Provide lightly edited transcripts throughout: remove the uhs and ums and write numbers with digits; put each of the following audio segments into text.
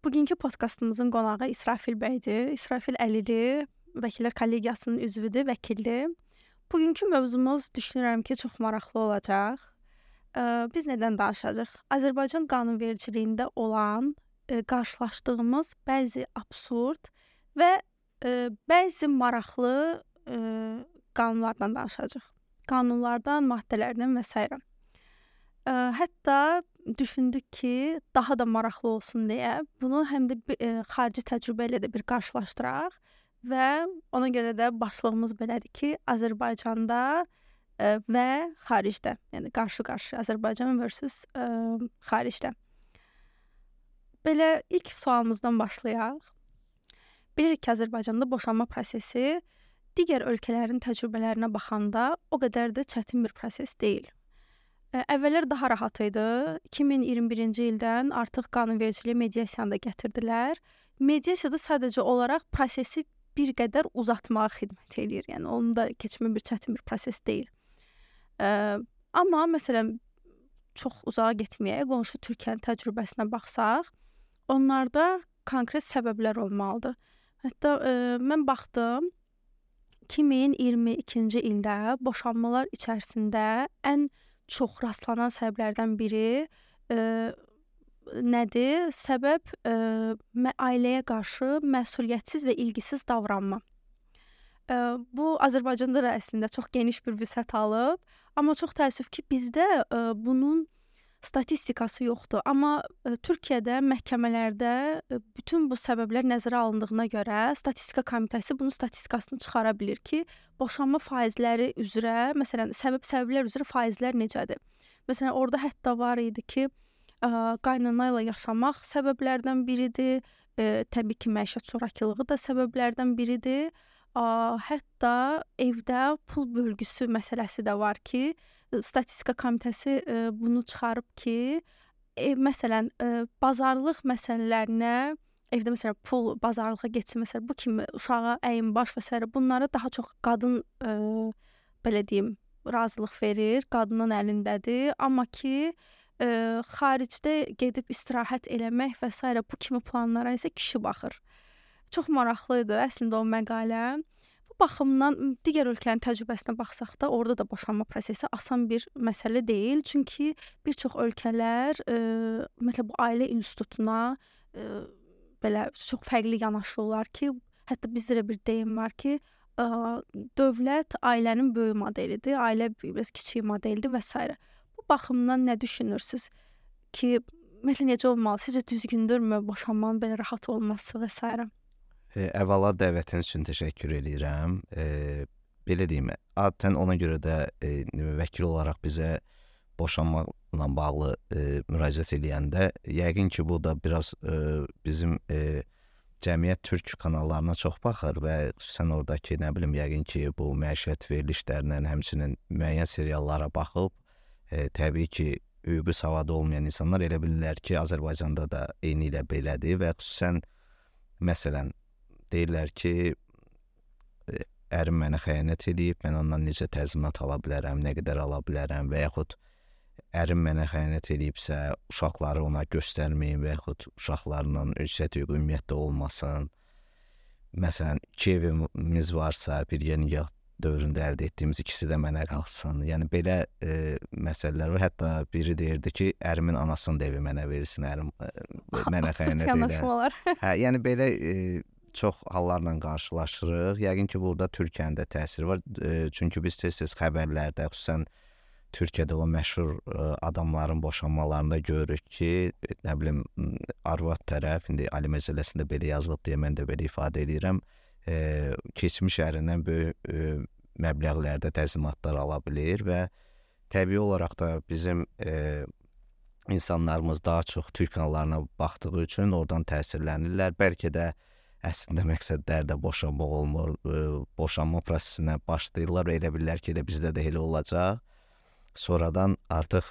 Bugünkü podkastımızın qonağı İsrafil bəydir. İsrafil Əlili, Vəkillər Kollegiyasının üzvüdür, vəkildir. Bugünkü mövzumuz düşünürəm ki, çox maraqlı olacaq. Biz nədən danışacağıq? Azərbaycan qanunvericiliyində olan qarşılaşdığımız bəzi absurd və bəzi maraqlı qanunlardan danışacağıq. Qanunlardan, maddələrdən və s. Hətta düşündük ki, daha da maraqlı olsun deyə bunu həm də xarici təcrübə ilə də bir qarşılaşdıraq və ona görə də başlığımız belədir ki, Azərbaycanda və xaricdə, yəni qarşı-qarşı Azərbaycan versus xaricdə. Belə ilk sualımızdan başlayaq. Bilirik ki, Azərbaycanda boşanma prosesi digər ölkələrin təcrübələrinə baxanda o qədər də çətin bir proses deyil. Əvvəllər daha rahat idi. 2021-ci ildən artıq qanunvericiliyə mediasiyanı da gətirdilər. Mediasiyada sadəcə olaraq prosesi bir qədər uzatmağa xidmət eləyir. Yəni onun da keçmə bir çətin bir proses deyil. Amma məsələn çox uzağa getməyək, qonşu Türkiyənin təcrübəsinə baxsaq, onlarda konkret səbəblər olmalıdır. Hətta mən baxdım 2022-ci ildə boşanmalar içərisində ən çox rastlanan səbəblərdən biri nədir? Səbəb ailəyə qarşı məsuliyyətsiz və ilgisiz davranma. Bu Azərbaycanda da əslində çox geniş bir vüsət alıb, amma çox təəssüf ki, bizdə bunun statistikası yoxdur. Amma Türkiyədə məhkəmələrdə bütün bu səbəblər nəzərə alındığına görə Statistika Komitəsi bunun statistikasını çıxara bilir ki, boşanma faizləri üzrə, məsələn, səbəblər üzrə faizlər necədir? Məsələn, orada hətta var idi ki, qaynana ilə yaşamaq səbəblərdən biridir. Təbii ki, məişət zorakılığı da səbəblərdən biridir. Hətta evdə pul bölgüsü məsələsi də var ki, Statistika Komitəsi bunu çıxarıb ki, məsələn, bazarlıq məsələlərinə, evdə məsələn pul bazarlığa getsin, məsələn, bu kimi uşağa əyin baş və s. bunlara daha çox qadın belə deyim, razılıq verir, qadının əlindədir. Amma ki, xaricdə gedib istirahət eləmək və s. bu kimi planlara isə kişi baxır. Çox maraqlı idi əslində o məqalə. Bu baxımdan digər ölkələrin təcrübəsinə baxsaq da, orada da boşanma prosesi asan bir məsələ deyil. Çünki bir çox ölkələr məsələn bu ailə institutuna belə çox fərqli yanaşırlar ki, hətta bizdə də bir deyim var ki, dövlət ailənin böyük modelidir, ailə biraz kiçik modeldir və s. Bu baxımdan nə düşünürsüz ki, məsələn necə olmalı? Sizcə düzgündürmü boşanmanın belə rahat olması və s. Əvvəla dəvətiniz üçün təşəkkür edirəm. Belə deyim, adətən ona görə də vəkil olaraq bizə boşanmaqla bağlı müraciət edəndə, yəqin ki, bu da biraz bizim cəmiyyət türk kanallarına çox baxır və xüsusən oradakı, nə bilim, yəqin ki, bu məişət verilişlərindən, həmçinin müəyyən seriallara baxıb, təbii ki, hüquqi savadı olmayan insanlar elə bilirlər ki, Azərbaycanda da eyni ilə belədir və xüsusən, məsələn, deyirlər ki, ərim mənə xəyanət edib, mən ondan necə təzminat ala bilərəm, nə qədər ala bilərəm və yaxud ərim mənə xəyanət edibsə, uşaqları ona göstərməyin və yaxud uşaqlarla ünsiyyət hüququ ümumiyyətlə olmasın. Məsələn, 2 evimiz varsa, bir nikah dövründə əldə etdiyimiz ikisi də mənə qalsın. Yəni, belə məsələlər var. Hətta biri deyirdi ki, ərimin anasının da evi mənə verilsin, ərim mənə xəyanət edir. Yəni, belə çox hallarla qarşılaşırıq. Yəqin ki, burada Türkiyənin də təsiri var. Çünki biz tez-tez xəbərlərdə, xüsusən Türkiyədə olan məşhur adamların boşanmalarında görürük ki, nə bilim, arvad tərəf, indi Ali Məcəlləsində belə yazılıb deyə mən də belə ifadə edirəm, keçmiş ərindən böyük məbləğlərdə təzminatlar ala bilir və təbii olaraq da bizim insanlarımız daha çox Türk kanallarına baxdığı üçün oradan təsirlənirlər. Bəlkə də əslində məqsədlər də boşanmaq olmur, boşanma prosesinə başlayırlar və elə bilirlər ki, elə bizdə də elə olacaq. Sonradan artıq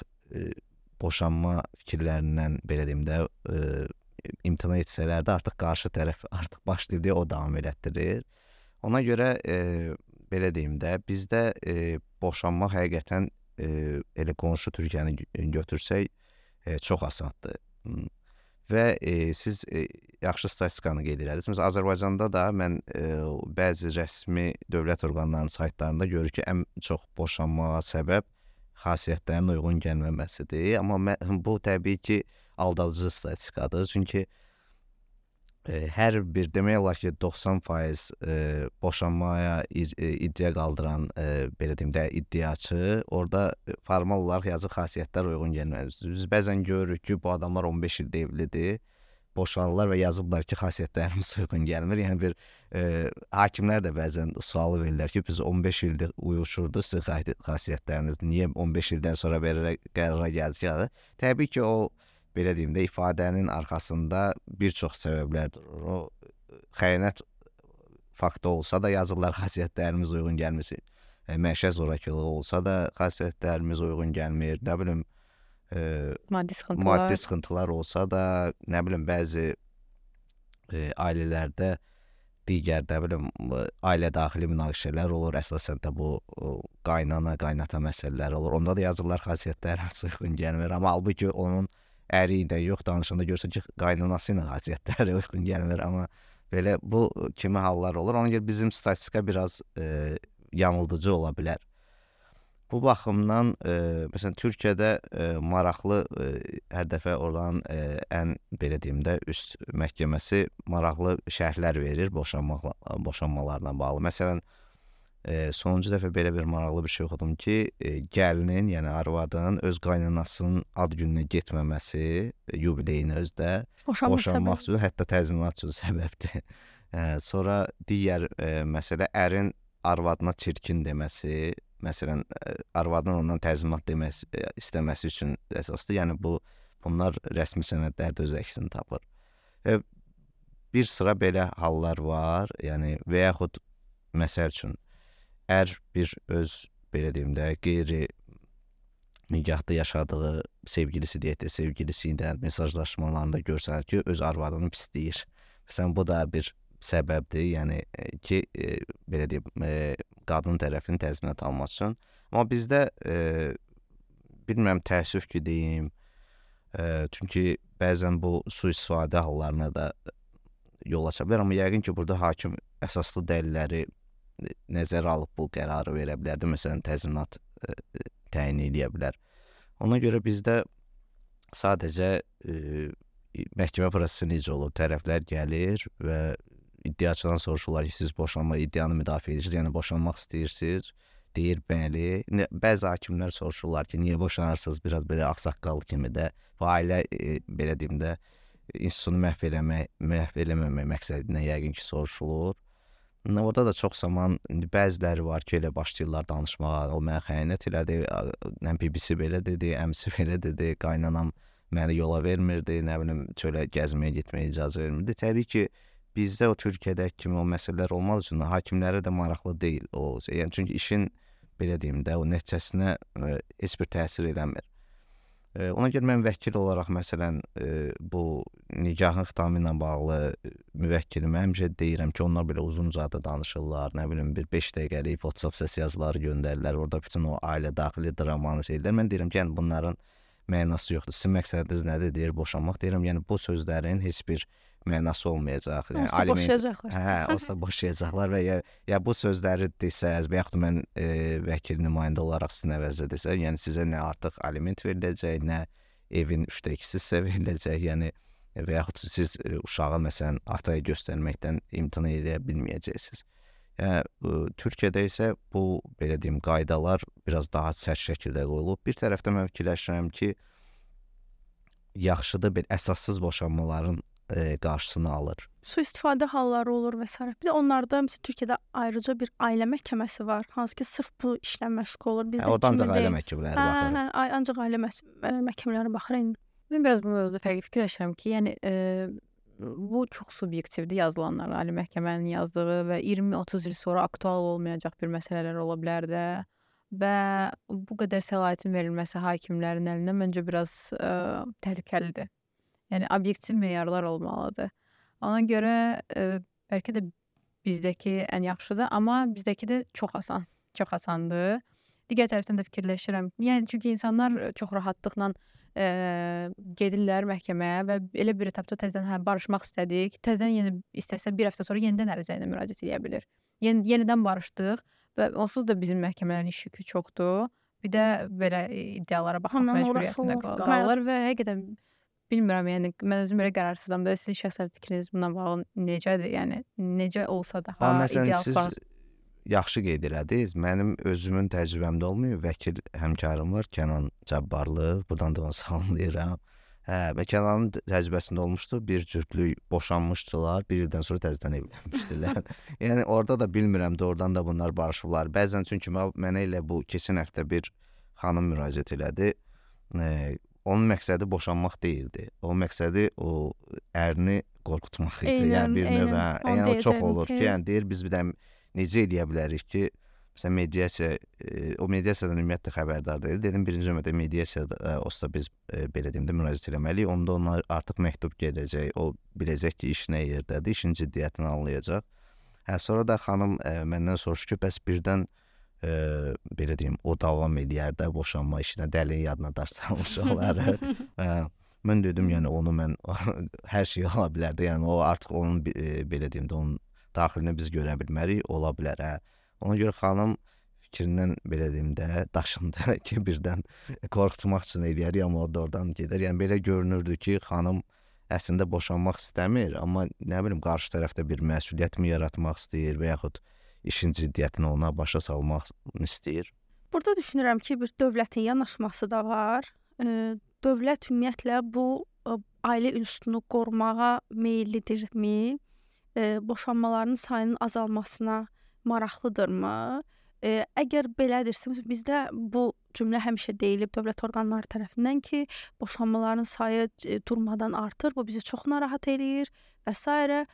boşanma fikirlərindən, belə deyim də, imtina etsələr də artıq qarşı tərəf artıq başlayır deyə o davam elətdirir. Ona görə, belə deyim də, bizdə boşanmaq həqiqətən elə qonşu Türkiyəni götürsək çox asandır. Və siz yaxşı statistikanı qeyd elədiz. Məsələn, Azərbaycanda da mən bəzi rəsmi dövlət orqanlarının saytlarında görür ki, ən çox boşanmağa səbəb xasiyyətlərin uyğun gəlməməsidir. Amma bu təbii ki, aldadıcı statistikadır. Çünki hər bir demək olar ki, 90% boşanmaya iddia qaldıran belə deyim də iddiaçı orada formal olaraq yazıq xasiyyətlər uyğun gəlməz. Biz bəzən görürük ki, bu adamlar 15 ildir evlidir, boşanırlar və yazıblar ki, xasiyyətlərimiz uyğun gəlmir. Yəni bir hakimlər də bəzən sual verirlər ki, biz 15 ildir uyuşurdu sizin xasiyyətləriniz, niyə 15 ildən sonra belə qərara gəldik ki? Təbii ki, o belə deyim də ifadənin arxasında bir çox səbəblər durur. O xəyanət faktı olsa da yazırlar xasiyyətlərimiz uyğun gəlmir. Məişət zorakılığı olsa da xasiyyətlərimiz uyğun gəlmir. Nə bilim maddi sıxıntılar olsa da, nə bilim bəzi ailələrdə digər nə bilim ailə daxili münaqişələr olur. Əsasən də bu qaynana, qaynata məsələləri olur. Onda da yazırlar xasiyyətlərimiz uyğun gəlmir. Amma halbuki onun əri ilə yox danışanda görsən ki, qaynanası ilə xasiyyətləri uyğun gəlmir. Amma belə bu kimi hallar olur. Ona görə bizim statistika biraz yanıldıcı ola bilər. Bu baxımdan məsələn Türkiyədə maraqlı hər dəfə oradan ən belə deyim də üst məhkəməsi maraqlı şərhlər verir boşanmalarla bağlı. Məsələn sonuncu dəfə belə bir maraqlı bir şey oxudum ki, gəlinin, yəni arvadın öz qaynanasının ad gününə getməməsi, yubileyinə özdə boşanmaq üçün, hətta təzminat üçün səbəbdir. Sonra digər məsələ ərin arvadına çirkin deməsi, məsələn arvadın ondan təzminat istəməsi üçün əsasdır. Yəni bunlar rəsmi sənədlərdə öz əksini tapır. Bir sıra belə hallar var. Yəni və yaxud məsəl üçün bir öz belə deyim də qeyri nikahda yaşadığı sevgilisi ilə mesajlaşmalarında görsənir ki, öz arvadını pisləyir. Məsələn bu da bir səbəbdir, yəni ki, belə deyim, qadın tərəfinin təzminat alması üçün. Amma bizdə bilmirəm, təəssüf ki deyim, çünki bəzən bu sui-istifadə hallarına da yol aça bilər, amma yəqin ki, burada hakim əsaslı dəlilləri nəzərə alıb bu qərarı verə bilərdi. Məsələn, təzminat təyin edə bilər. Ona görə bizdə sadəcə məhkəmə prosesi necə olur? Tərəflər gəlir və iddiaçıdan soruşurlar ki, siz boşanma iddianı müdafiə edirsiniz, yəni boşanmaq istəyirsiniz. Deyir, bəli. Bəzi hakimlər soruşurlar ki, niyə boşanırsınız? Biraz belə ağsaqqal kimi də. Bu ailə, belə deyim də, institutunu məhv eləməmək məqsədinə yəqin ki, soruşulur. Orada da çox zaman bəziləri var ki, elə başlayırlar danışmağa. O mənə xəyanət elədi, BBC belə dedi, əmsi belə dedi, qaynanam məni yola vermirdi, nə bilim, çölə gəzməyə getməyə icazə vermirdi. Təbii ki, bizdə o Türkiyədəki kimi o məsələlər olmaq üçün hakimlərə də maraqlı deyil o. Yəni çünki işin belə deyim də o nəticəsinə heç bir təsir eləmir. Ona görə mən vəkil olaraq məsələn bu nikahın xitamı ilə bağlı müvəkkilimə həmişə deyirəm ki, onlar belə uzun-uzadı danışırlar, nə bilim bir 5 dəqiqəlik WhatsApp səs yazıları göndərirlər, orada bütün o ailə daxili dramanı şeylər. Mən deyirəm ki, yəni bunların mənası yoxdur. Sizin məqsədiniz nədir? Deyir boşanmaq. Deyirəm, yəni bu sözlərin heç bir mənası olmayacaq. Yəni onsuz da boşayacaqlar. Onsuz da boşayacaqlar və ya bu sözləri desəz və yaxud mən vəkil nümayəndə olaraq sizin əvəzdə desəm, yəni sizə nə artıq aliment veriləcək, nə evin 3/2 sizə veriləcək, yəni və yaxud siz uşağı məsələn ataya göstərməkdən imtina edə bilməyəcəksiniz. Yəni Türkiyədə isə bu belə deyim qaydalar biraz daha sərt şəkildə qoyulub. Bir tərəfdən mən fikirləşirəm ki, yaxşıdır bir əsassız boşanmaların qarşısını alır. Sui-istifadə halları olur və s. Bir də onlarda məsələn Türkiyədə ayrıca bir ailə məhkəməsi var, hansı ki sırf bu işlə məşğul olur. Bizdə orada ancaq ailə məhkəmələri baxır. Ancaq ailə məhkəmələri baxır. Mən biraz bu mövzuda fərqli fikirləşirəm ki, yəni bu çox subyektivdir yazılanlar, ali məhkəmənin yazdığı və 20-30 il sonra aktual olmayacaq bir məsələlər ola bilər də və bu qədər səlahiyyətin verilməsi hakimlərin əlinə məncə biraz təhlükəlidir. Yəni obyektiv meyarlar olmalıdır. Ona görə bəlkə də bizdəki ən yaxşıdır, amma bizdəki də çox asandır. Digər tərəfdən də fikirləşirəm. Yəni çünki insanlar çox rahatlıqla gedirlər məhkəməyə və elə bir etapda təzədən barışmaq istədik. Təzədən yenə istəsə bir həftə sonra yenidən ərizə ilə müraciət edə bilər. Yenidən barışdıq və onsuz da bizim məhkəmələrin iş yükü çoxdur. Bir də belə iddialara baxmaq məcburiyyətində qalırlar və həqiqətən bilmirəm, yəni mən özüm belə qərarsızam da. Sizin şəxsən fikriniz bununla bağlı necədir? Yəni necə olsa daha ideal forma? Siz yaxşı qeyd elədiniz. Mənim özümün təcrübəmdə olmuyor. Vəkil həmkarım var, Kənan Cabbarlı. Buradan da onu salamlayıram. Və Kənanın təcrübəsində olmuşdu. Bir cütlük boşanmışdılar. Bir ildən sonra təzədən evlənmişdilər. Yəni orada da bilmirəm, doğrudan da bunlar barışıblar. Bəzən çünki mənə elə bu keçən həftə bir xanım müraciət elədi. Onun məqsədi boşanmaq deyildi. O məqsədi o ərini qorxutmaq idi. Yəni bir növ, yəni o çox olur ki, yəni deyir biz bir də necə eləyə bilərik ki, məsələn mediasiya, o mediasiyadan ümumiyyətlə xəbərdar deyil. Dedim birinci növbədə mediasiyada olsa biz belə deyim də müraciət eləməliyik. Onda ona artıq məktub gələcək. O biləcək ki, iş nə yerdədir, işin ciddiyyətini anlayacaq. Sonra da xanım məndən soruşdu ki, bəs birdən belə deyim, o davam eləyər də boşanma işinə, dəlin yadına daş salmış olar. Mən dedim, yəni onu mən hər şey ola bilər də, yəni o artıq onun belə deyim də onun daxilinə biz görə bilmərik, ola bilər. Ona görə xanım fikrindən belə deyim də daşındı ki, birdən qorxutmaq üçün eləyər, amma o da oradan gedər. Yəni belə görünürdü ki, xanım əslində boşanmaq istəmir, amma nə bilim qarşı tərəfdə bir məsuliyyət mi yaratmaq istəyir və yaxud işin ciddiyyətini ona başa salmaq istəyir. Burada düşünürəm ki, bir dövlətin yanaşması da var. Dövlət ümumiyyətlə bu ailə institutunu qorumağa meyllidirmi? Boşanmaların sayının azalmasına maraqlıdırmı? Əgər belədirsə, bizdə bu cümlə həmişə deyilib dövlət orqanları tərəfindən ki, boşanmaların sayı durmadan artır, bu bizi çox narahat eləyir və s.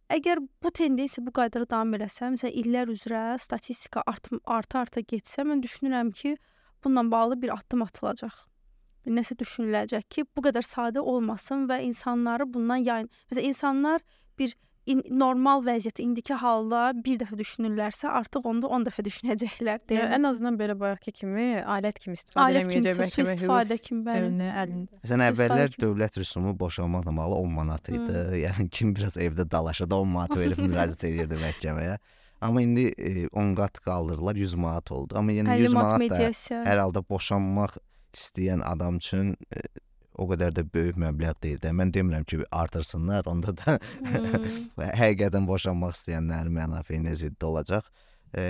Əgər bu tendensiya bu qaydada davam eləsə, məsələn illər üzrə statistika arta getsə, mən düşünürəm ki, bununla bağlı bir addım atılacaq. Nəsə düşünüləcək ki, bu qədər sadə olmasın və insanları bundan yayın. Məsələn insanlar bir normal vəziyyət indiki halda bir dəfə düşünürlərsə, artıq onda 10 dəfə düşünəcəklər deyə. Ən azından belə bayaqki kimi alət kimi istifadə etməyəcək məhkəmə hüquq. Məsələn əvvəllər dövlət rüsumu boşanmaqla bağlı 10 manat idi. Yəni kim biraz evdə dalaşa da 10 manat verib müraciət edirdi məhkəməyə. Amma indi 10 qat qaldırdılar, 100 manat oldu. Amma yəni 100 manat da hər halda boşanmaq istəyən adam üçün o qədər də böyük məbləğ deyil də. Mən demirəm ki, artırsınlar, onda da həqiqətən boşanmaq istəyənlərin mənafeyinə zidd olacaq.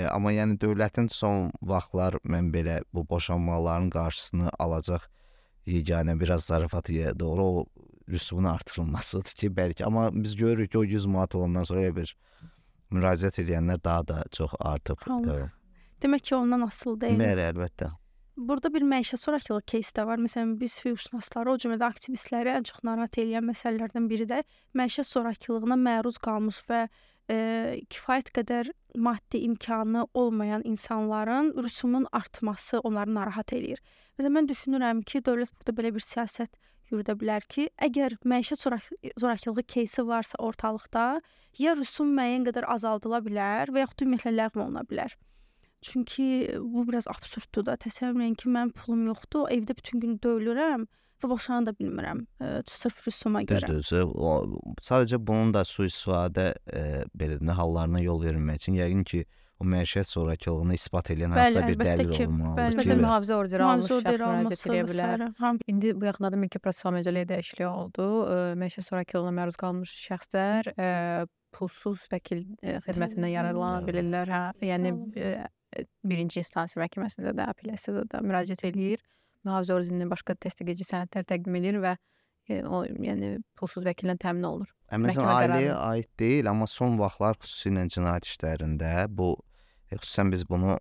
Amma yəni dövlətin son vaxtlar mən belə bu boşanmaların qarşısını alacaq yeganə biraz zarafatıya doğru o rüsumun artırılmasıdır ki, bəlkə. Amma biz görürük ki, o 100 manat olandan sonra bir müraciət edənlər daha da çox artıb. Demək ki, ondan asılı deyil. Bəli, əlbəttə. Burada bir məişət zorakılıq кейsi də var. Məsələn, biz hüquqşünasları, o cümlədə aktivistləri ən çox narahat edən məsələlərdən biri də məişət zorakılığına məruz qalmış və kifayət qədər maddi imkanı olmayan insanların rüsumun artması onları narahat eləyir. Məsələn, mən düşünürəm ki, dövlət burada belə bir siyasət yürüdə bilər ki, əgər məişət zorakılığı кейsi varsa ortalıqda, ya rüsum müəyyən qədər azaldıla bilər və yaxud ümumiyyətlə ləğv oluna bilər. Çünki bu biraz absurddur da. Təsəvvür edin ki, mənim pulum yoxdur, evdə bütün gün döyülürəm və boşana da bilmirəm sırf rüsuma görə. Düzdür. Sadəcə bunun da sui-istifadə belə hallarına yol verilmək üçün yəqin ki, o məişət zorakılığını isbat edən hansısa bir dəlil olmalıdır. Məsələn, mühafizə orderi almış şəxs müraciət edə bilər. İndi bu yaxınlarda mülki prosessual məcəlləyə dəyişiklik oldu. Məişət zorakılığına məruz qalmış şəxslər pulsuz vəkil xidmətindən yararlana bilirlər. Yəni birinci instansiya məhkəməsində də, apellyasiyada da müraciət eləyir. Mühafizə orderinin başqa təsdiqləyici sənədlər təqdim edir və o yəni pulsuz vəkillə təmin olunur. Məsələn, ailəyə aid deyil, amma son vaxtlar xüsusilə cinayət işlərində bu xüsusən biz bunu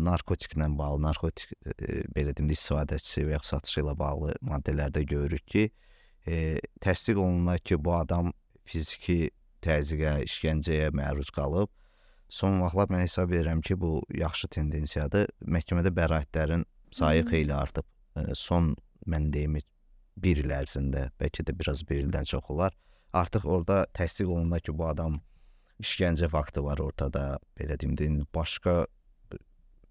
narkotiklə bağlı, narkotik belə deyim də istifadəçisi və ya satışı ilə bağlı maddələrdə görürük ki, təsdiq olunur ki, bu adam fiziki təzyiqə, işgəncəyə məruz qalıb. Son vaxtlar mən hesab edirəm ki, bu yaxşı tendensiyadır. Məhkəmədə bəraətlərin sayı xeyli artıb. Son, mən deyim, bir il ərzində, bəlkə də biraz bir ildən çox olar. Artıq orada təsdiq olunur ki, bu adam işgəncə faktı var ortada, belə deyim, başqa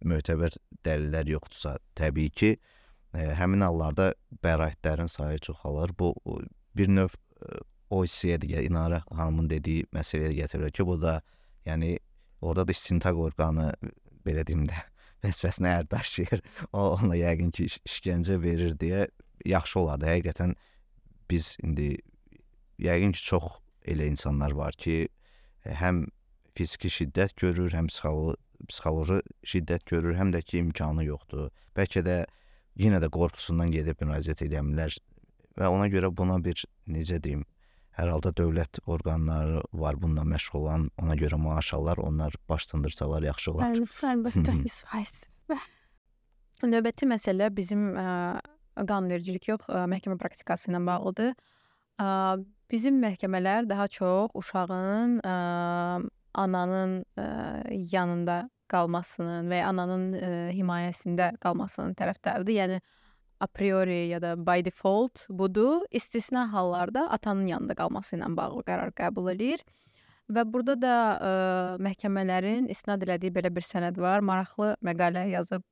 mötəbər dəlillər yoxdursa, təbii ki, həmin hallarda bəraətlərin sayı çoxalır. Bu bir növ o hissəyə də İnara xanımın dediyi məsələyə gətirir ki, bu da yəni orada da istintaq orqanı belə deyim də vəzifəsinə ər daşıyır. O ona yəqin ki işgəncə verir deyə yaxşı olardı. Həqiqətən biz indi yəqin ki çox elə insanlar var ki, həm fiziki şiddət görür, həm psixoloji şiddət görür, həm də ki imkanı yoxdur. Bəlkə də yenə də qorxusundan gedib müraciət edə və ona görə buna bir necə deyim, hər halda dövlət orqanları var bununla məşğul olan, ona görə maaş alırlar, onlar baş sındırsalar yaxşı olar. Əlbəttə, his. Növbəti məsələ bizim qanunvericilik yox, məhkəmə praktikası ilə bağlıdır. Bizim məhkəmələr daha çox uşağın ananın yanında qalmasının və ya ananın himayəsində qalmasının tərəfdarıdır. Yəni a priori ya da by default budur. İstisna hallarda atanın yanında qalması ilə bağlı qərar qəbul edir. Və burada da məhkəmələrin istinad elədiyi belə bir sənəd var. Maraqlı məqalə yazıb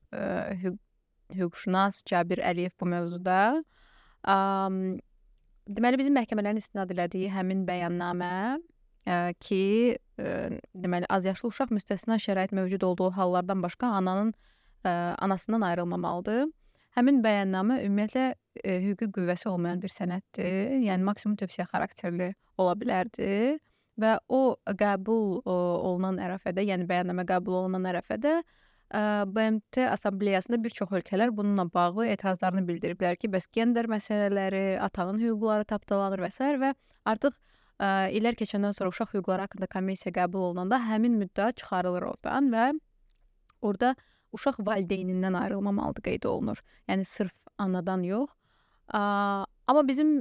hüquqşünas Cabir Əliyev bu mövzuda. Deməli, bizim məhkəmələrin istinad elədiyi həmin bəyannamə ki, deməli, azyaşlı uşaq müstəsna şərait mövcud olduğu hallardan başqa anasından ayrılmamalıdır. Həmin bəyannamə ümumiyyətlə hüquqi qüvvəsi olmayan bir sənəddir. Yəni maksimum tövsiyə xarakterli ola bilərdi və o qəbul olunan ərəfədə, yəni bəyannamə qəbul olunan ərəfədə BMT Assambleyasında bir çox ölkələr bununla bağlı etirazlarını bildiriblər ki, bəs gender məsələləri, atanın hüquqları tapdalanır və s. və artıq illər keçəndən sonra uşaq hüquqları haqqında konvensiya qəbul olunanda həmin müddəa çıxarılır oradan və orada uşaq valideynindən ayrılmamalıdır qeyd olunur. Yəni sırf anadan yox. Amma bizim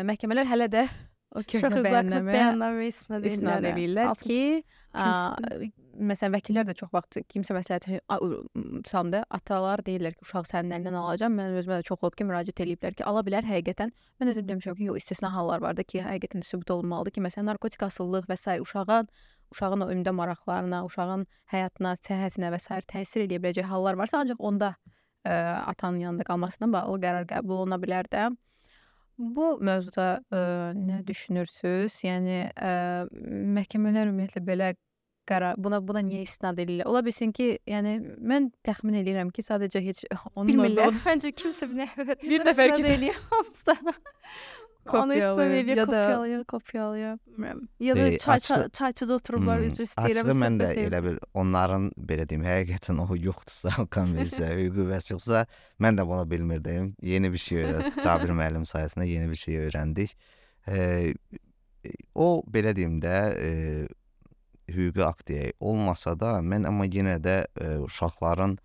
məhkəmələr hələ də o köhnə bəyannamə istinad edirlər ki, məsələn, vəkillər də çox vaxt kimsə məsləhət salında atalar deyirlər ki, uşaq sənin əlindən alacağam. Mən özümə də çox olub ki, müraciət eləyiblər ki, ala bilər həqiqətən. Mən özüm demişəm ki, yox, istisna hallar var da ki, həqiqətən də sübut olunmalıdır ki, məsələn, narkotik asıllıq və s. uşağın o ümdə maraqlarına, uşağın həyatına, səhhətinə və s. təsir edə biləcək hallar varsa, ancaq onda atanın yanında qalmasına bağlı qərar qəbul oluna bilər də. Bu mövzuda nə düşünürsüz? Yəni məhkəmələr ümumiyyətlə belə qərar buna niyə istinad edirlər? Ola bilsin ki, yəni mən təxmin edirəm ki, sadəcə heç onun bilmirlər. Məncə kimsə bir nəfər eləyir hamısı. Kopyalaya. Ya da çayçıda oturublar, üzr istəyirəm. Açığı mən də elə bir onların belə deyim, həqiqətən o yoxdursa, konvensiya, qüvvəsi yoxsa, mən də bunu bilmirdim. Yeni bir şey öyrəndik. Cabir müəllim sayəsində yeni bir şey öyrəndik. O belə deyim də hüquqi akt olmasa da, mən amma yenə də uşaqların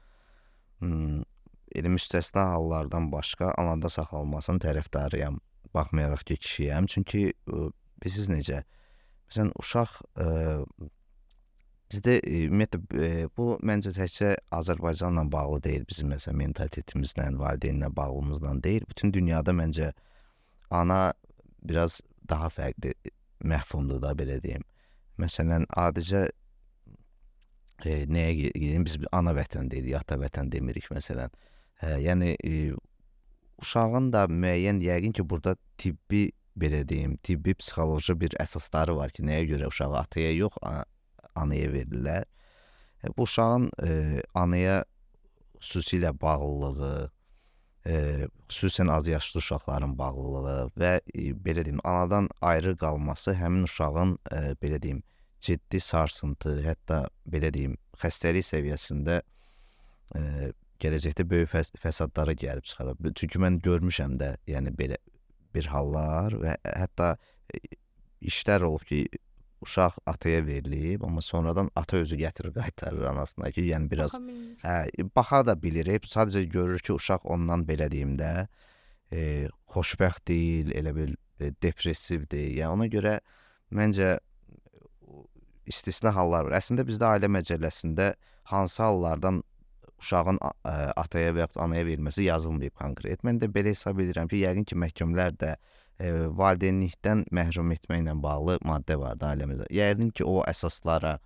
elə müstəsna hallardan başqa anada saxlanılmasının tərəfdarıyam. Baxmayaraq ki, kişiyəm. Çünki bilirsiniz necə? Məsələn, uşaq bizdə ümumiyyətlə bu məncə təkcə Azərbaycanla bağlı deyil. Bizim məsələn mentalitetimizlə, valideynlə bağlılığımızla deyil. Bütün dünyada məncə ana biraz daha fərqli məfhumdur da belə deyim. Məsələn, adicə nəyə gedeyim? Biz ana vətən deyirik, ata vətən demirik məsələn. Yəni uşağın da müəyyən yəqin ki, burada tibbi belə deyim, tibbi psixoloji bir əsasları var ki, nəyə görə uşağı ataya yox, anaya verirlər. Bu uşağın anaya xüsusilə bağlılığı, xüsusən azyaşlı uşaqların bağlılığı və belə deyim, anadan ayrı qalması həmin uşağın belə deyim, ciddi sarsıntı, hətta belə deyim, xəstəlik səviyyəsində gələcəkdə böyük fəsadlara gəlib çıxarır. Çünki mən görmüşəm də, yəni belə bir hallar və hətta işlər olub ki, uşaq ataya verilib, amma sonradan ata özü gətirir, qaytarır anasına ki, yəni biraz baxa da bilir. Sadəcə görür ki, uşaq ondan belə deyim də xoşbəxt deyil, elə bir depressivdir. Yəni ona görə məncə istisna hallar var. Əslində bizdə ailə məcəlləsində hansı hallardan uşağın ataya və yaxud anaya verilməsi yazılmayıb konkret. Mən də belə hesab edirəm ki, yəqin ki, məhkəmələr də valideynlikdən məhrum etməklə bağlı maddə vardı ailəmizdə. Yəqin ki, o əsaslara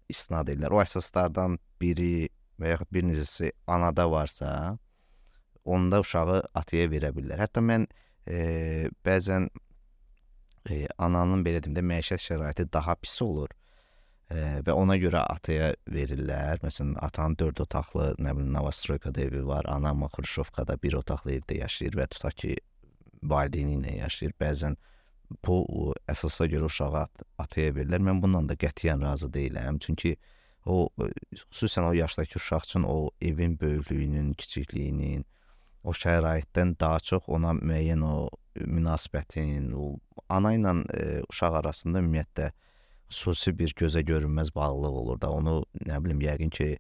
istinad edirlər. O əsaslardan biri və yaxud bir neçəsi anada varsa, onda uşağı ataya verə bilirlər. Hətta mən bəzən ananın belə deyim də məişət şəraiti daha pis olur və ona görə ataya verirlər. Məsələn, atanın 4 otaqlı, nə bilim, Novostroykada evi var, anam Xruşovkada 1 otaqlı evdə yaşayır və tutaq ki, valideyni ilə yaşayır. Bəzən bu əsasa görə uşağı ataya verirlər. Mən bundan da qətiyyən razı deyiləm. Çünki o xüsusən o yaşdakı uşaq üçün o evin böyüklüyünün, kiçikliyinin, o şəraitdən daha çox ona müəyyən o münasibətin, o ana ilə uşaq arasında ümumiyyətlə xüsusi bir gözə görünməz bağlılıq olur da. Onu nə bilim, yəqin ki,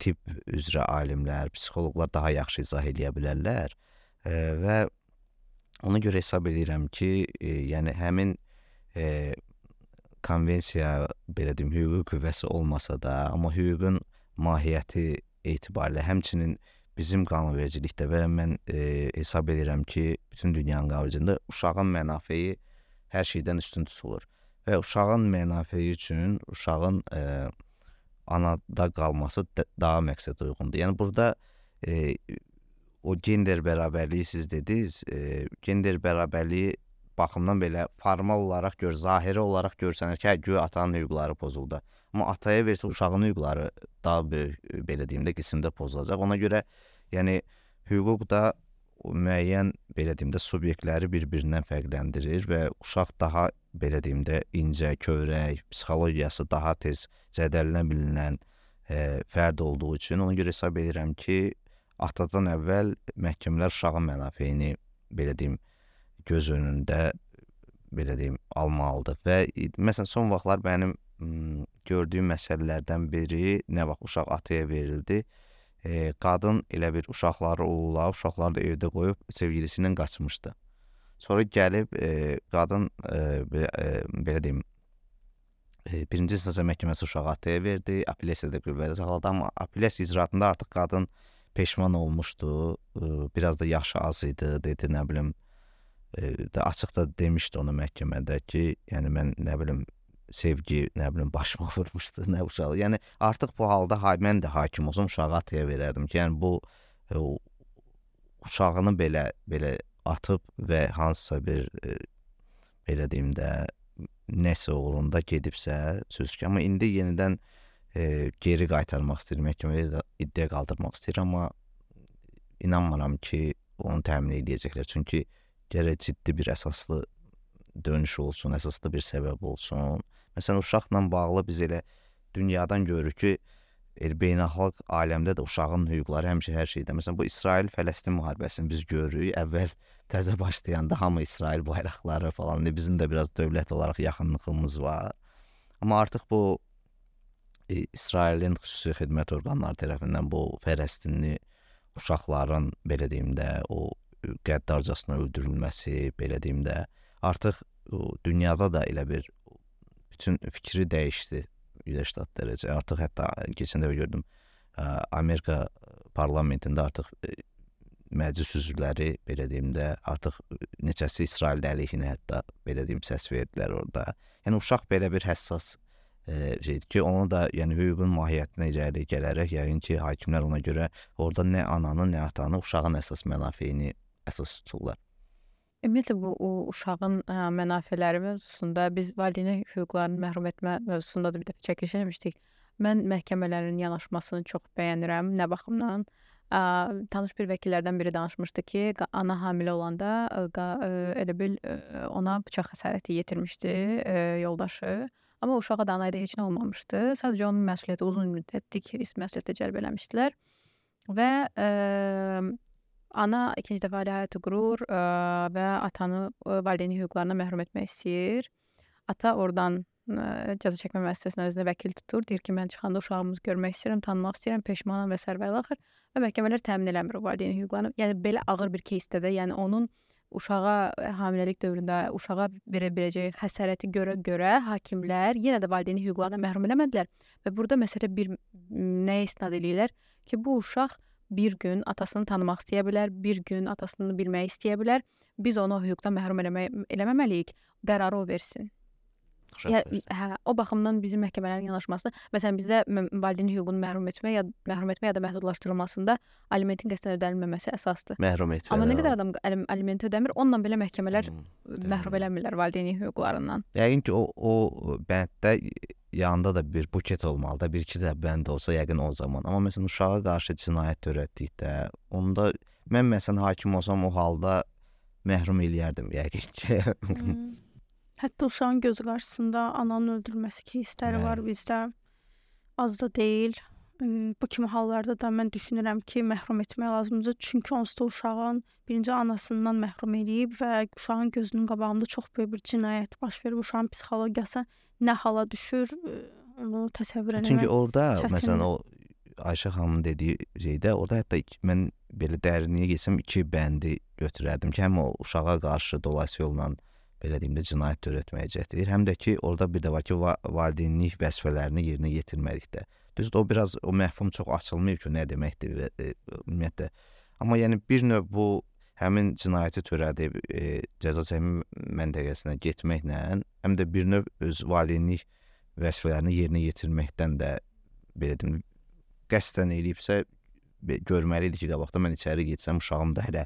tibb üzrə alimlər, psixoloqlar daha yaxşı izah eləyə bilərlər və ona görə hesab edirəm ki, yəni həmin konvensiya, belə deyim, hüquqi qüvvəsi olmasa da, amma hüququn mahiyyəti etibarilə, həmçinin bizim qanunvericilikdə və mən hesab edirəm ki, bütün dünyanın qanunvericiliyində uşağın mənafeyi hər şeydən üstün tutulur. Və uşağın mənafeyi üçün uşağın anada qalması daha məqsəd uyğundur. Yəni burada o gender bərabərliyi siz dediniz, gender bərabərliyi baxımdan belə formal olaraq zahiri olaraq görsənir ki, güya atanın hüquqları pozuldu. Amma ataya versə uşağın hüquqları daha böyük, belə deyim də, qismdə pozulacaq. Ona görə yəni hüquq da müəyyən, belə deyim də, subyektləri bir-birindən fərqləndirir və uşaq daha, belə deyim də, incə, kövrək, psixologiyası daha tez zədələnə bilinən fərd olduğu üçün ona görə hesab edirəm ki, atadan əvvəl məhkəmələr uşağın mənafeyini, belə deyim, göz önündə, belə deyim, almalıdır. Və məsələn, son vaxtlar mənim gördüyüm məsələlərdən biri, nə vaxt uşaq ataya verildi, qadın elə bir uşaqları da evdə qoyub sevgilisi ilə qaçmışdı. Sonra gəlib qadın, belə deyim, birinci instansiya məhkəməsi uşağı ataya verdi, apellyasiyada qüvvədə saxladı, amma apellyasiya icraatında artıq qadın peşman olmuşdu, biraz da yaşı az idi, dedi, nə bilim, açıq da demişdi onu məhkəmədə ki, yəni mən, nə bilim, sevgi, nə bilim, başıma vurmuşdu, nə uşağı. Yəni artıq bu halda mən də hakim olsam uşağı ataya verərdim ki, yəni bu uşağını belə atıb və hansısa bir, belə deyim də, nəsə uğrunda gedibsə, söz ki, amma indi yenidən geri qaytarmaq istəyir, məhkəmədə iddia qaldırmaq istəyir, amma inanmıram ki, onu təmin edəcəklər. Çünki gərək ciddi bir əsaslı dönüş olsun, əsaslı bir səbəb olsun. Məsələn, uşaqla bağlı biz elə dünyadan görürük ki, beynəlxalq aləmdə də uşağın hüquqları həmişə hər şeydə. Məsələn, bu İsrail-Fələstin müharibəsini biz görürük. Əvvəl təzə başlayanda hamı İsrail bayraqları falan, bizim də biraz dövlət olaraq yaxınlığımız var. Amma artıq bu İsrailin xüsusi xidmət orqanları tərəfindən bu Fələstinli uşaqların, belə deyim də, o qəddarcasına öldürülməsi, belə deyim də, artıq dünyada da elə bir bütün fikri dəyişdi Birləşmiş Ştat dərəcə. Artıq hətta keçən dəfə gördüm, Amerika parlamentində artıq məclis üzvləri, belə deyim də, artıq neçəsi İsrail əleyhinə hətta, belə deyim, səs verdilər orada. Yəni uşaq belə bir həssas şeydir ki, onu da, yəni hüququn mahiyyətinə irəli gələrək, yəqin ki, hakimlər ona görə orada nə ananı, nə atanı, uşağın əsas mənafeyini əsas tuturlar. Ümumiyyətlə bu uşağın mənafeləri mövzusunda biz valideyn hüquqlarını məhrum etmə mövzusunda da bir dəfə çəkiliş eləmişdik. Mən məhkəmələrin yanaşmasını çox bəyənirəm. Nə baxımdan? Tanış bir vəkillərdən biri danışmışdı ki, ana hamilə olanda elə bil ona bıçaq xəsarəti yetirmişdi yoldaşı. Amma uşağa da anayda heç nə olmamışdı. Sadəcə onun məsuliyyəti uzun müddətlik məsuliyyətə cəlb eləmişdilər. Və ana ikinci dəfə ailə həyatı qurur və atanı valideyn hüquqlarına məhrum etmək istəyir. Ata oradan cəza çəkmə müəssisəsinin özünə vəkil tutur. Deyir ki, mən çıxanda uşağımızı görmək istəyirəm, tanımaq istəyirəm, peşmanam və sərvəli axır. Və məhkəmələr təmin eləmir o valideyn hüquqlarını. Yəni belə ağır bir keysdə də, yəni onun uşağa hamiləlik dövründə uşağa verə biləcəyi xəsarəti görə hakimlər yenə də valideyn hüquqlarına məhrum eləmədilər. Və burada məsələ bir nəyə istinad eləyirlər ki, bu uşaq bir gün atasını tanımaq istəyə bilər, bir gün atasını bilmək istəyə bilər. Biz onu hüquqdan məhrum eləməməliyik. Qərarı o versin. O baxımdan bizim məhkəmələrin yanaşması, məsələn bizdə valideyn hüququnu məhrum etmə ya da məhdudlaşdırılmasında alimentin qəsdən ödənilməməsi əsasdır. Məhrum etmə. Amma nə qədər adam aliment ödəmir, onunla belə məhkəmələr məhrum eləmirlər valideyn hüquqlarından. Yəqin ki, o bənddə yanında da bir buket olmalı da, bir-iki də bənd olsa yəqin o zaman. Amma məsələn uşağa qarşı cinayət törətdikdə, onda mən məsələn hakim olsam o halda məhrum eləyərdim yəqin ki. Hətta uşağın gözü qarşısında ananın öldürülməsi кейsləri var bizdə. Az da deyil. Bu kimi hallarda da mən düşünürəm ki, məhrum etmək lazımdır. Çünki onsuz da uşağın birinci anasından məhrum eləyib və uşağın gözünün qabağında çox böyük bir cinayət baş verib. Uşağın psixologiyası nə hala düşür, onu təsəvvür etmək. Çünki orada çətindir. məsələn o Ayşə xanımın dediyi şeydə, orada hətta mən belə dərinliyə getsəm 2 bəndi götürərdim ki, həm o uşağa qarşı dolayısı yolla belə deyim də cinayət törətməyə cəhd edir. Həm də ki, orada bir də var ki, valideynlik vəzifələrini yerinə yetirmədikdə. Düzdür, o biraz o məhfum çox açılmayıb ki, nə deməkdir ümumiyyətlə. Amma yəni bir növ bu həmin cinayəti törədib cəza çəkmə məntəqəsinə getməklə, həm də bir növ öz valideynlik vəzifələrini yerinə yetirməkdən də belə deyim, qəsdən eləyibsə görməli idi ki, qabaqda mən içəri getsəm, uşağım da hələ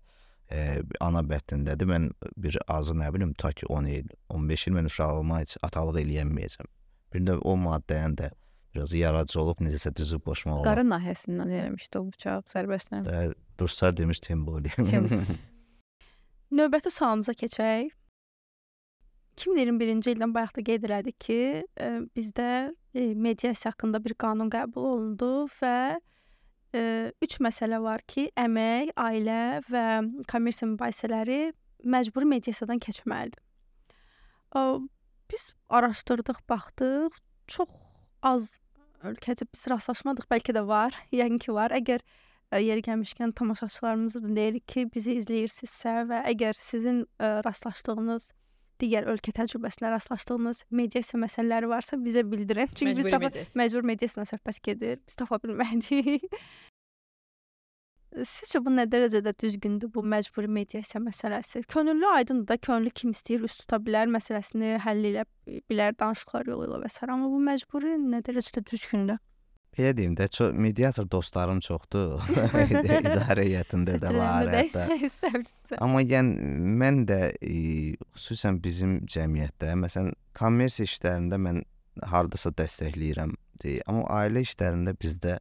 ana bətnindədir. Mən bir azı nə bilim, ta ki 10 il, 15 il mən uşağıma heç atalıq eləyəməyəcəm. Bir də o maddəyə də biraz yaradıcı olub, necəsə düzüb boşmaq olub. Qarın nahiyəsindən eləmişdi o bıçaq sərbəstdən. Ruslar demiş temboli. Növbəti sualımıza keçək. 2021-ci ildən bayaq da qeyd elədik ki, bizdə mediasiya haqqında bir qanun qəbul olundu və 3 məsələ var ki, əmək, ailə və kommersiya mübahisələri məcburi mediasiyadan keçməlidir. Biz araşdırdıq, baxdıq, çox az ölkəcə biz rastlaşmadıq, bəlkə də var, yəqin ki var. Əgər yeri gəlmişkən tamaşaçılarımıza da deyirik ki, bizi izləyirsinizsə və əgər sizin rastlaşdığınız digər ölkə təcrübəsinə rastlaşdığınız mediasiya məsələləri varsa bizə bildirin. Çünki biz məcbur mediasiyadan söhbət gedir. Biz tapa bilmədik. Sizcə bu nə dərəcədə düzgündür bu məcburi mediasiya məsələsi? Könüllü aydındır da, könüllü kim istəyir üst tuta bilər, məsələsini həll edə bilər danışıqlar yolu ilə və s. Amma bu məcburi nə dərəcədə düzgündür? Belə deyim də, mediator dostlarım çoxdur. İdarə heyətində də var. Amma yəni mən də xüsusən bizim cəmiyyətdə, məsələn, kommersiya işlərində mən hardasa dəstəkləyirəm. Amma ailə işlərində bizdə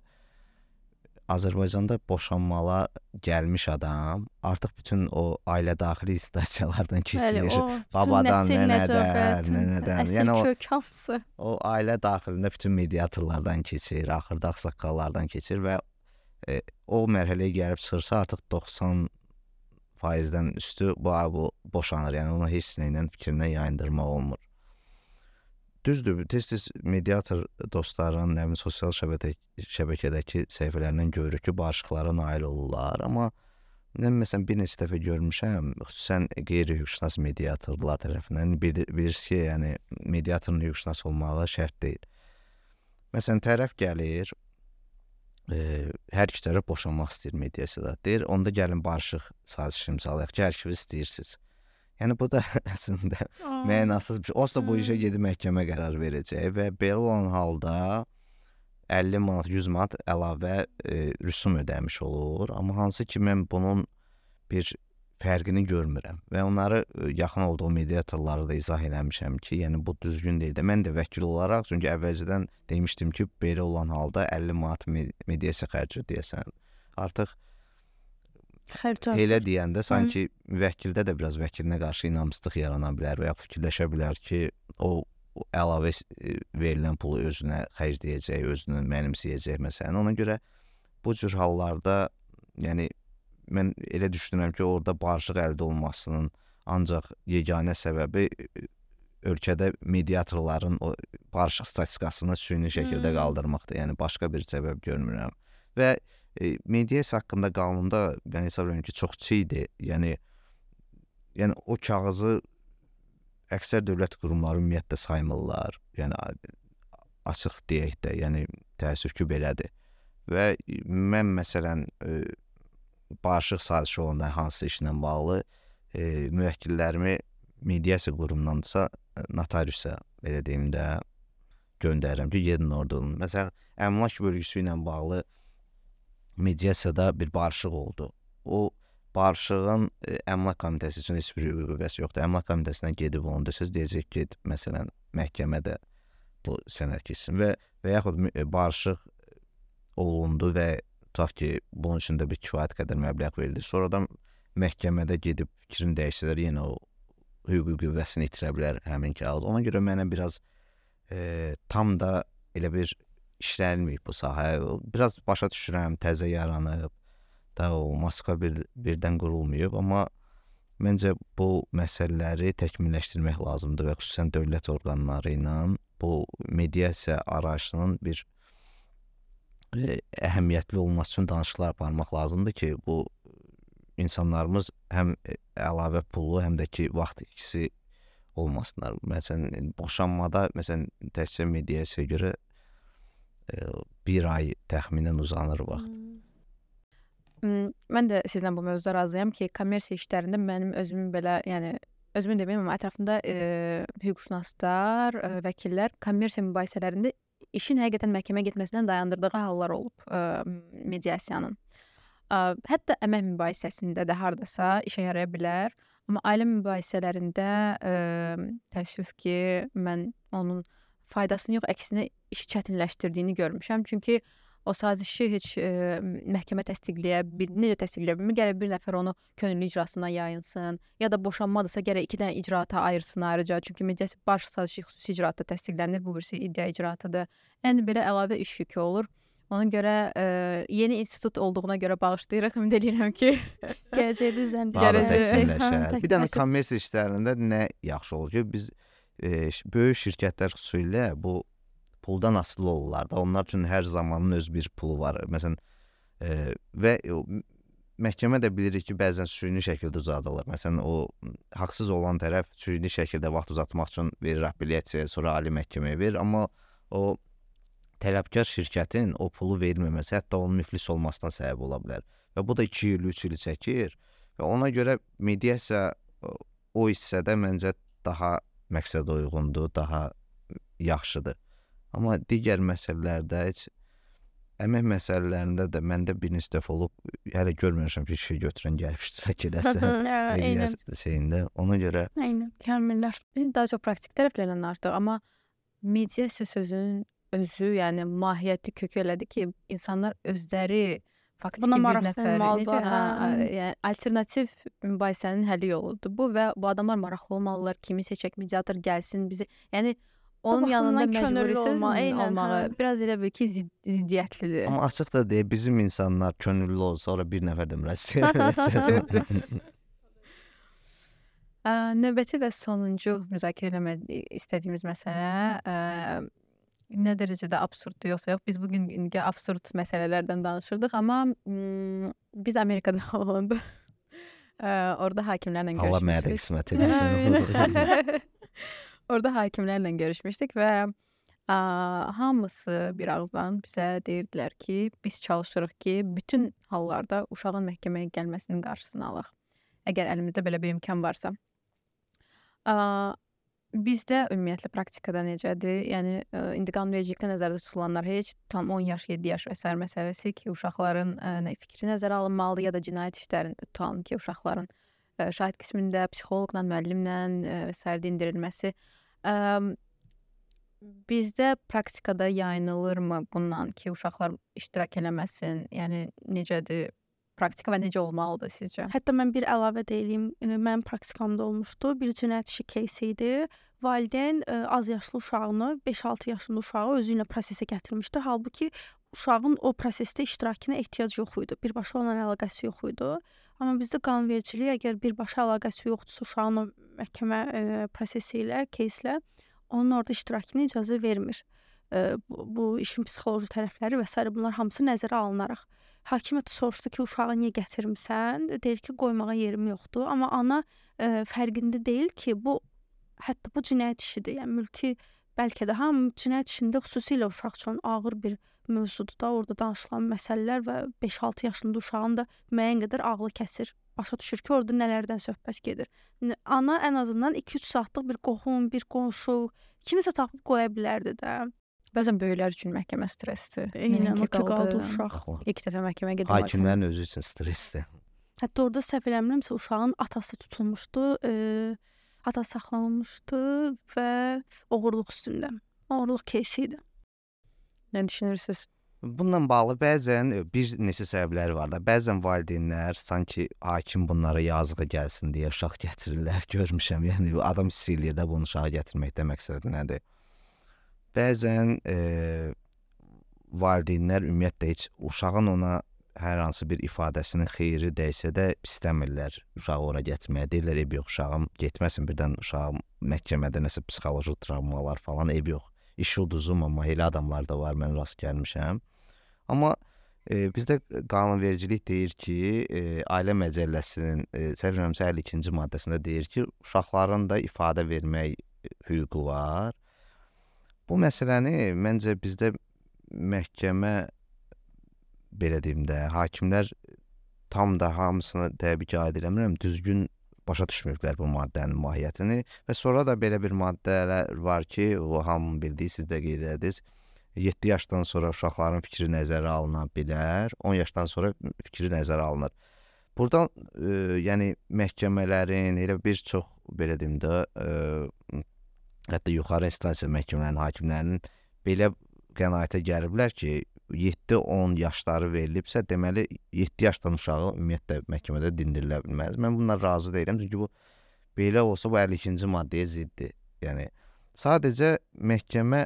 Azərbaycanda boşanmalar gəlmiş adam artıq bütün o ailə daxili instasiyalardan keçirir. Babadan, nənədən, yəni kök hamısı. O ailə daxilində bütün mediatorlardan keçir, axırda ağsaqqallardan keçir və o mərhələyə gəlib çıxırsa artıq 90%-dən üstü bu boşanır. Yəni ona heç nə ilə fikrindən yayındırmaq olmur. Düzdür, tez-tez mediator dostların, sosial şəbəkədəki səhifələrindən görürük ki, barışıqlara nail olurlar. Amma mən məsələn bir neçə dəfə görmüşəm, xüsusən qeyri-hüquqşünas mediatorlar tərəfindən bilirsiniz ki, yəni mediatorun hüquqşünas olmağı şərt deyil. Məsələn, tərəf gəlir, hər iki tərəf boşanmaq istəyir mediasiyada. Deyir, onda gəlin barışıq sazişi imzalayaq ki, hər ikiniz istəyirsiniz. Yəni bu da əslində mənasız bir şey. Onsuz da bu işə gedib məhkəmə qərar verəcək və belə olan halda 50 manat, 100 manat əlavə rüsum ödəmiş olur. Amma hansı ki mən bunun bir fərqini görmürəm və onları yaxın olduğu mediatorları da izah eləmişəm ki, yəni bu düzgün deyil də. Mən də vəkil olaraq, çünki əvvəlcədən demişdim ki, belə olan halda 50 manat mediasiya xərci deyəsən. Artıq elə deyəndə sanki vəkildə də biraz vəkilinə qarşı inamsızlıq yarana bilər və ya fikirləşə bilər ki, o əlavə verilən pulu özünə xərcləyəcək, özünü mənimsəyəcək məsələn. Ona görə bu cür hallarda, yəni mən elə düşünürəm ki, orada barışıq əldə olmasının ancaq yeganə səbəbi ölkədə mediatorların o barışıq statistikasını süni şəkildə qaldırmaqdır. Yəni başqa bir səbəb görmürəm. Və mediasiya haqqında qanunda mən hesab edirəm ki, çox çiğdir. Yəni o kağızı əksər dövlət qurumları ümumiyyətlə saymırlar. Yəni açıq deyək də, yəni təəssüf ki, belədir. Və mən məsələn barışıq sazişi olanda hansı işlə bağlı müvəkkillərimi mediasiya qurumundansa notariusa belə deyim də, göndərirəm ki, gedin orada olun. Məsələn, əmlak bölgüsü ilə bağlı mediasiyada bir barışıq oldu. O barışığın əmlak komitəsi üçün heç bir hüquqi qüvvəsi yoxdur. Əmlak komitəsinə gedib onu desəz, deyəcək ki, məsələn, məhkəmədə bu sənəd keçsin və yaxud barışıq olundu və tutaq ki, bunun üçün də bir kifayət qədər məbləğ verildi. Sonradan məhkəmədə gedib fikrini dəyişsələr, yenə o hüquqi qüvvəsini itirə bilər həmin kağız. Ona görə mənə biraz tam da elə bir işlənməyib bu sahə. Biraz başa düşürəm, təzə yaranıb, da o maska birdən qurulmayıb, amma məncə bu məsələləri təkmilləşdirmək lazımdır və xüsusən dövlət orqanları ilə bu mediasiya arayışının bir əhəmiyyətli olması üçün danışıqlar aparmaq lazımdır ki, bu insanlarımız həm əlavə pulu, həm də ki, vaxt ikisi olmasınlar. Məsələn, boşanmada, məsələn, təkcə mediasiyaya görə bir ay təxminən uzanır vaxt. Mən də sizlə bu mövzuda razıyam ki, kommersiya işlərində mənim özümün belə, yəni özümün deməyim, amma ətrafında hüquqşünaslar, vəkillər kommersiya mübahisələrində işin həqiqətən məhkəməyə getməsindən dayandırdığı hallar olub mediasiyanın. Hətta əmək mübahisəsində də hardasa işə yaraya bilər. Amma ailə mübahisələrində təəssüf ki, mən onun faydasını yox, əksinə işi çətinləşdirdiyini görmüşəm. Çünki o sazişi heç məhkəmə təsdiqləyə bilmir. Gərək bir nəfər onu könüllü icrasına yayınsın. Ya da boşanmadırsa gərək 2 dənə icraata ayırsın ayrıca. Çünki mediasiya baş sazişi xüsusi icraatda təsdiqlənir. Bu birisi iddia icraatıdır. Yəni belə əlavə iş yükü olur. Ona görə yeni institut olduğuna görə bağışlayırıq. Ümid edirəm ki, gələcəkdə təkmilləşər. Bir dənə kommersiya işlərində nə yaxşı olur ki, biz böyük şirkətlər xüsusilə bu puldan asılı olurlar da. Onlar üçün hər zamanın öz bir pulu var. Məsələn, və məhkəmə də bilirik ki, bəzən süni şəkildə uzadılır. Məsələn, o haqsız olan tərəf süni şəkildə vaxt uzatmaq üçün verir apellyasiyaya, sonra ali məhkəməyə verir. Amma o tələbkar şirkətin o pulu verməməsi hətta onun müflis olmasına səbəb ola bilər. Və bu da 2 il, 3 il çəkir. Və ona görə mediasiya o hissədə məncə daha məqsədə uyğundur, daha yaxşıdır. Amma digər məsələlərdə heç əmək məsələlərində də məndə bir neçə dəfə olub, hələ görməmişəm ki, işə götürən gəlib iştirak eləsə şeyində. Ona görə Kamillər. Biz daha çox praktik tərəflərdən danışdıq, amma mediasiya sözünün özü, yəni mahiyyəti kökü elədi ki, insanlar özləri faktiki Buna bir maraq nəfər, salmalılar, yəni alternativ mübahisənin həlli yoludur bu və bu adamlar maraqlı olmalılar, kimi seçək, mediator gəlsin bizi. Yəni onun yanında məcburi söz olmağı biraz elə bil ki, ziddiyyətlidir. Amma açıq da deyək, bizim insanlar könüllü olsa, sonra bir nəfər də müraciət edəcək. Növbəti və sonuncu müzakirə eləmək istədiyimiz məsələ nə dərəcədə absurddur yoxsa yox. Biz bugün absurd məsələlərdən danışırdıq, amma biz Amerikada olanda orada hakimlərlə görüşmüşdük. Allah mənə də qismət edilsin. Orada hakimlərlə görüşmüşdük və hamısı bir ağızdan bizə deyirdilər ki, biz çalışırıq ki, bütün hallarda uşağın məhkəməyə gəlməsinin qarşısını alaq. Əgər əlimizdə belə bir imkan varsa. Bizdə ümumiyyətlə praktikada necədir? Yəni indi qanunvericilikdə nəzərdə tutulanlar heç tam 10 yaş, 7 yaş və sair məsələsi ki, uşaqların fikri nəzərə alınmalıdır ya da cinayət işlərində tutalım ki, uşaqların şahid qismində psixoloqla, müəllimlə və sair dindirilməsi. Bizdə praktikada yayınılırmı bundan ki, uşaqlar iştirak eləməsin? Yəni necədir? Praktika və necə olmalıdır sizcə? Hətta mən bir əlavə deyim, mənim praktikamda olmuşdu. Bir cinayət işi кейsi idi. Valideyn az yaşlı uşağını, 5-6 yaşlı uşağı özü ilə prosesə gətirmişdi. Halbuki uşağın o prosesdə iştirakına ehtiyac yox idi. Birbaşa onunla əlaqəsi yox idi. Amma bizdə qanunvericilik əgər birbaşa əlaqəsi yoxdursa uşağın o məhkəmə prosesi ilə, keyslə onun orada iştirakına icazə vermir. Bu işin psixoloji tərəfləri və s. bunlar hamısı nəzərə alınaraq. Hakim soruşdu ki, uşağı niyə gətirmisən? Deyir ki, qoymağa yerim yoxdur. Amma ana fərqində deyil ki, hətta bu cinayət işidir. Yəni mülki bəlkə də cinayət işində xüsusilə uşaq üçün ağır bir mövzudur da, orada danışılan məsələlər və 5-6 yaşında uşağın da müəyyən qədər ağlı kəsir. Başa düşür ki, orada nələrdən söhbət gedir. Ana ən azından 2-3 saatlıq bir qohum, bir qonşu, kimisə tapıb qoya bilərdi də. Bəzən böyüklər üçün məhkəmə stressdir. Eynən o ki, qaldı uşaq. İlk dəfə məhkəməyə gedir. Hakimlərin özü üçün stressdir. Hətta orada səhv eləmirəmsə uşağın atası tutulmuşdu, atası saxlanılmışdı və oğurluq üstündə. Oğurluq кейsi idi. Nə düşünürsüz? Bununla bağlı bəzən bir neçə səbəbləri var da. Bəzən valideynlər sanki hakim bunlara yazığı gəlsin deyə uşaq gətirirlər, görmüşəm. Yəni adam hiss eləyir də bunu uşağa gətirməkdə məqsədi nədir? Bəzən valideynlər ümumiyyətlə heç uşağın ona hər hansı bir ifadəsinin xeyri dəysə də istəmirlər uşağı ora gətirməyə. Deyirlər, eyb yox, uşağım getməsin, birdən uşağım məhkəmədə nəsə psixoloji travmalar falan, eyb yox. İş ulduzum, amma elə adamlar da var, mən rast gəlmişəm. Amma bizdə qanunvericilik deyir ki, Ailə Məcəlləsinin səhv eləmirəmsə 52-ci maddəsində deyir ki, uşaqların da ifadə vermək hüququ var. Bu məsələni məncə bizdə məhkəmə, belə deyim də, hakimlər tam da hamısını təbii ki, aid eləmirəm, düzgün başa düşmürlər bu maddənin mahiyyətini və sonra da belə bir maddələr var ki, o hamı bildiyi, siz də qeyd ediniz, 7 yaşdan sonra uşaqların fikri nəzərə alına bilər, 10 yaşdan sonra fikri nəzərə alınır. Buradan yəni məhkəmələrin, elə bir çox, belə deyim də, hətta yuxarı instansiya məhkəmələrin, hakimlərinin belə qənaətə gəliblər ki, 7-10 yaşları verilibsə, deməli 7 yaşdan uşağı ümumiyyətlə məhkəmədə dindirilə bilməz. Mən bundan razı deyiləm, çünki bu belə olsa bu 52-ci maddəyə ziddir. Yəni sadəcə məhkəmə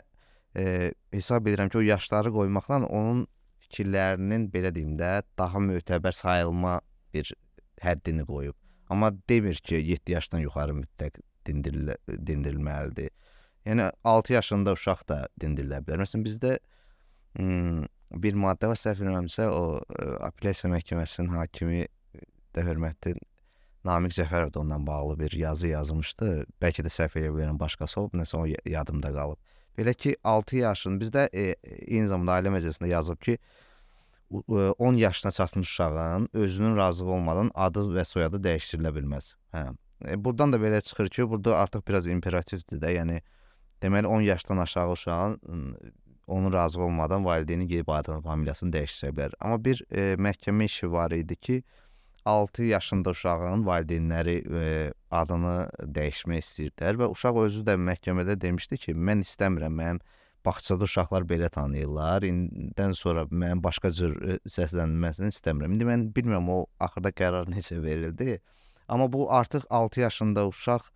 hesab edirəm ki, o yaşları qoymaqla onun fikirlərinin, belə deyim də, daha mötəbər sayılma bir həddini qoyub. Amma demir ki, 7 yaşdan yuxarı mütləq dindirilməlidir. Yəni 6 yaşında uşaq da dindirilə bilər. Məsələn, bizdə bir maddə var, səhv eləmirəmsə, o apellyasiya məhkəməsinin hakimi də hörmətli Namiq Cəfərov da ondan bağlı bir yazı yazmışdı. Bəlkə də səhv eləyə bilərəm, başqası olub, nəsə o yadımda qalıb. Belə ki, 6 yaşın, bizdə eyni zamanda Ailə Məcəlləsində yazıb ki, 10 yaşına çatmış uşağın özünün razılığı olmadan adı və soyadı dəyişdirilə bilməz. Buradan da belə çıxır ki, burada artıq biraz imperativdir də, yəni deməli 10 yaşdan aşağı uşağın onun razı olmadan valideyni gedib adını, familiyasını dəyişdirə bilər. Amma bir məhkəmə işi var idi ki, 6 yaşında uşağın valideynləri adını dəyişmək istəyirdilər və uşaq özü də məhkəmədə demişdi ki, mən istəmirəm, mənim bağçada uşaqlar belə tanıyırlar, indidən sonra mənim başqa cür səslənilməsini istəmirəm. İndi mən bilmirəm o axırda qərar necə verildi, amma bu artıq 6 yaşında uşaq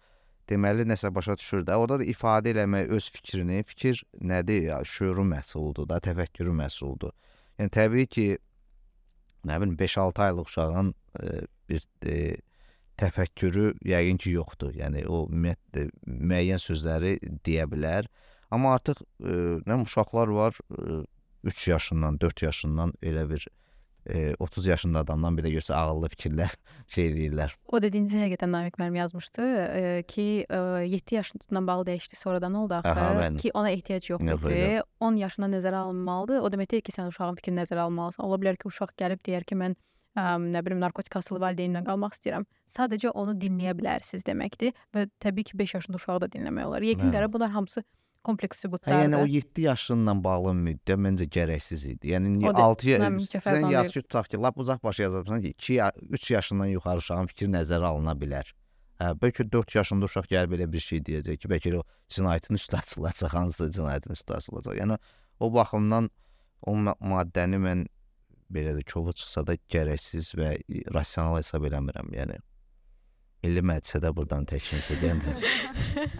deməli nəsə başa düşür də, orada da ifadə eləmək öz fikrini, fikir nədir, ya, şüuru məhsuludur da, təfəkkürü məhsuludur. Yəni təbii ki, nə bilim 5-6 aylıq uşağın bir təfəkkürü yəqin ki, yoxdur. Yəni o ümumiyyətlə müəyyən sözləri deyə bilər. Amma artıq uşaqlar var 3 yaşından, 4 yaşından elə bir 30 yaşında adamdan belə görsə ağıllı fikirlər eləyirlər. O dediyiniz həqiqətən Namiq müəllim yazmışdı ki, 7 yaşından bağlı dəyişdi, sonradan oldu axı ki, ona ehtiyac yoxdur. 10 yaşına nəzərə alınmalıdır. O demək deyil ki, sən uşağın fikrini nəzərə almalısan. Ola bilər ki, uşaq gəlib deyər ki, mən nə bilim narkotik asılı valideynlə qalmaq istəyirəm. Sadəcə onu dinləyə bilərsiniz deməkdir və təbii ki, 5 yaşında uşağı da dinləmək olar. Yekun qərar bunlar hamısı kompleks sübutlardır. Yəni o 7 yaşından bağlı müddət məncə gərəksiz idi. Yəni 6 sən yaz ki, tutaq ki, lap uzaq başa yazırsan ki, 3 yaşından yuxarı uşağın fikri nəzərə alına bilər. Bəlkə 4 yaşında uşaq gəlib belə bir şey deyəcək ki, bəlkə o cinayətin üstü açılacaq, hansısa cinayətin üstü açılacaq. Yəni o baxımdan o maddəni mən belə də kovu çıxsa da gərəksiz və rasional hesab eləmirəm. Yəni Milli Məclisə də buradan təklifinizi göndərin.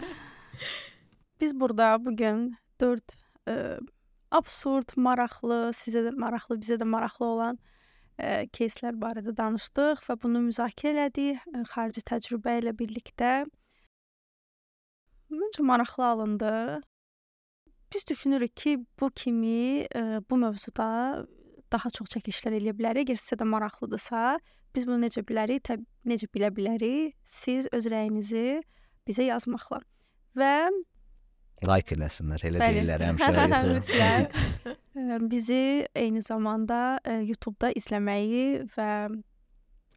Biz burada bugün 4 absurd, maraqlı, sizə də maraqlı, bizə də maraqlı olan keyslər barədə danışdıq və bunu müzakirə elədik xarici təcrübə ilə birlikdə. Məncə maraqlı alındı. Biz düşünürük ki, bu kimi bu mövzuda daha çox çəkilişlər eləyə bilərik. Əgər sizə də maraqlıdırsa, biz bunu necə bilərik, necə bilə bilərik? Siz öz rəyinizi bizə yazmaqla. Və like eləsinlər, elə Bəli. deyirlər həmişə. Mütləq. Bizi eyni zamanda YouTube-da izləməyi və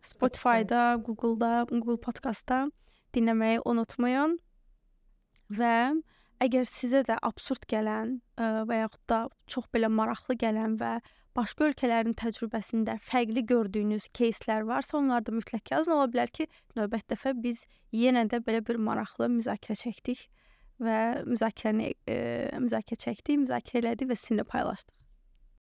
Spotify-da, Google-da, Google Podcast-da dinləməyi unutmayın. Və əgər sizə də absurd gələn və yaxud da çox belə maraqlı gələn və başqa ölkələrin təcrübəsində fərqli gördüyünüz keyslər varsa, onları da mütləq yazın. Ola bilər ki, növbət dəfə biz yenə də belə bir maraqlı müzakirə çəkdik və müzakirə çəkdik, müzakirə elədik və sizinlə paylaşdıq.